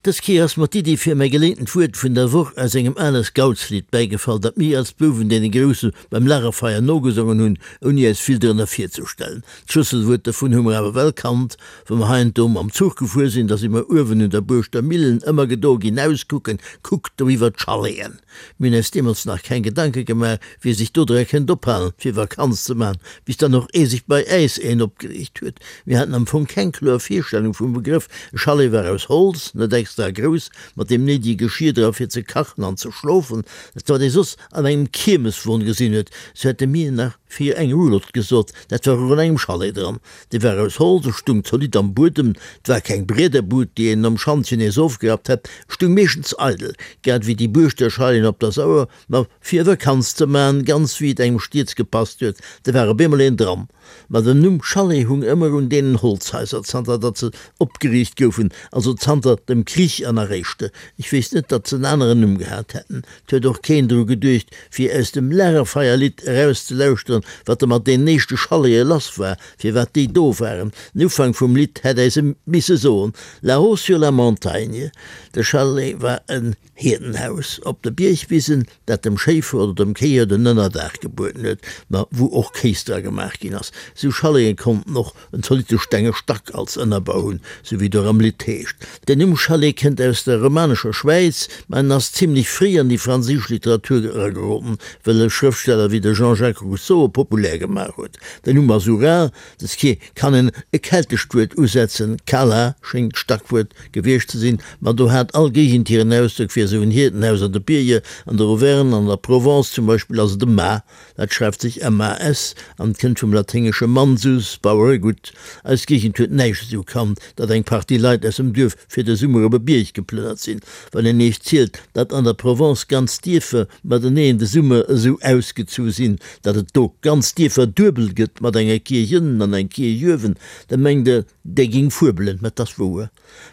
Dës Kéier ass mer d'Iddi fir mäi geleeëntent Wuert vun der Woch aus engem ale Scoutslidd bäigefall, dat mir als Bouwen deene Grousse beim Lagerfeier nogesongen hunn, ouni äis vill drënner virzestellen. D'Schlësselwuert dovun hu mer awer well kannt. Wa mer hei an do mam Zuch gefuer sinn, da si mer uewen un der Buerschter Millen ëmmer gedo ginn auskucken, Kuckt do iwwer d'Chaleten! Mir hunn äis deemools nach keng Gedanke gemaach, wie sech do dra kënnt ophalen, fir Vakanz ze maachen, bis dann och ee sech bei äis een opgeriicht huet. Mir haten am Fong keng kloer Virstellung vum Begrëff. E Chalet war aus Holz, net extra grouss, mat deem néidege Geschir dra fir ze kachen an ze schlofen, dat wat ee soss an engem Kiermeswon gesinn huet. Sou hätte mir nach fir eng Roulotte gesot, dat war och an engem Chalet dran. Dee war aus Holz, e stung zolidd am Buedem, 't war keng Briederbud, déi een nom Schantjen nees ofgerappt hätt, stung meeschtens eidel, grad ewéi déi Buurschter Chaillen op der Sauer, ma fir Vakanz ze man, ganz wéi et engem stieds gepasst huet, da war op eemol een dran. Ma den Numm Chalet hung ëmmer un deenen Holzhaiser, zanter datt se opgeriicht goufen, also zanter dem Krich an eréischte. Ech weess net, datt se en aneren Numm gehat hätten. 't huet och keen dru geduecht, fir aus dem Lagerfeierlidd erauszelauschteren, wat da mat deenen éischte Chalete lass war, firwat déi do waren. Den Ufank vum Lidd hätt äis e misse soen, Là-haut sur la montagne. De Chalet war en Hierdenhaus op de Biergwisen, dat dem Schéifer oder dem Kéier den Ënnerdaach gebueden huet, ma wou och Kéis dra gemaach ginn ass. Sou Chalete konnten och en zolitte stenge Stack als Ënnerbau hunn, sou wéi et och am Lidd heescht. Den Numm Chalet kënnt aus der romanescher Schwäiz, ma en ass zimlech fréi an déi franséisch Literatur erageroden, well e Schrëftsteller wéi de Jean-Jacques Rousseau e populär gemaach huet. Den Numm ass ural, dës Kéier kann en e keltescht Wuert usetzen, cala schéngt d'Stackwuert gewiescht ze sinn, ma do hat all Géigend hiren Ausdrock fir esou en Hierdenhaus an de Bierger, an der Auvergne an der Provence zum Beispill ass et e Mas. Dat schreift sech MAS an kënnt vum laténgesche mansus, Baueregutt. Eis Géigend huet näischt esou kannt, datt eng Partie Leit aus dem Duerf fir de Summer op e Bierg geplënnert sinn. Wann een iech zielt, datt an der Provence ganz Dierfer mateneen de Summer esou ausgezu sinn, datt et do ganz Dierfer duebel gëtt, mat enger Kierch ënnen an eng Kierch uewen, da mengt der, där géing fuebelen. Mä 't ass wouer.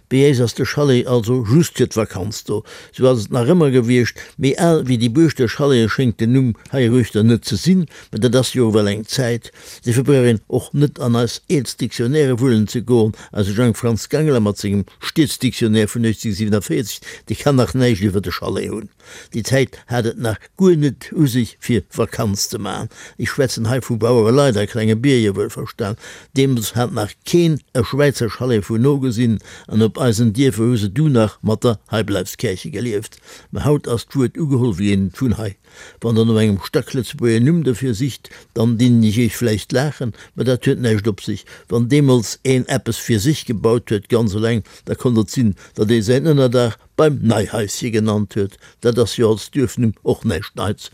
Bei äis ass de Chalet also just fir d'Vakanz do. Sou ass et nach ëmmer gewiescht. Méi al wéi déi Buerschter Chalete schéngt den Numm heiruechter net ze sinn, mä dat ass jo ewell eng Zäit. Dofir brauch een och net an eis eelst Dictionnairë wullen ze goen. Eise Jang Franz Gangler mat sengem Stieds-Dictionnaire vun 1847, dee kann nach näischt iwwer de Chalet hunn. Déi Zäit hat et nach guer net u sech fir Vakanz ze maachen. Ech schwätzen hei vu Bauereleit a klenge Bierger, wuelverstan. Deemools hat nach keen e Schwäizer Chalet vun no gesinn an op eisen Dierfer hu se du nach mat der Heibleibskärche gelieft. Mä haut ass d'Wuert ugeholl wéi eent vun hei. Wann der no engem Stacklëtzebuerger Numm dofir sicht, dann dinn ech iech vläicht laachen, mä dat huet näischt op sech. Wann deemools een eppes fir sech gebaut huet, ganz eleng, da konnt et sinn, datt ee säin Ënnerdaach beim Neihaische genannt huet. Dat ass jo als Duerfnumm och näischt Neits.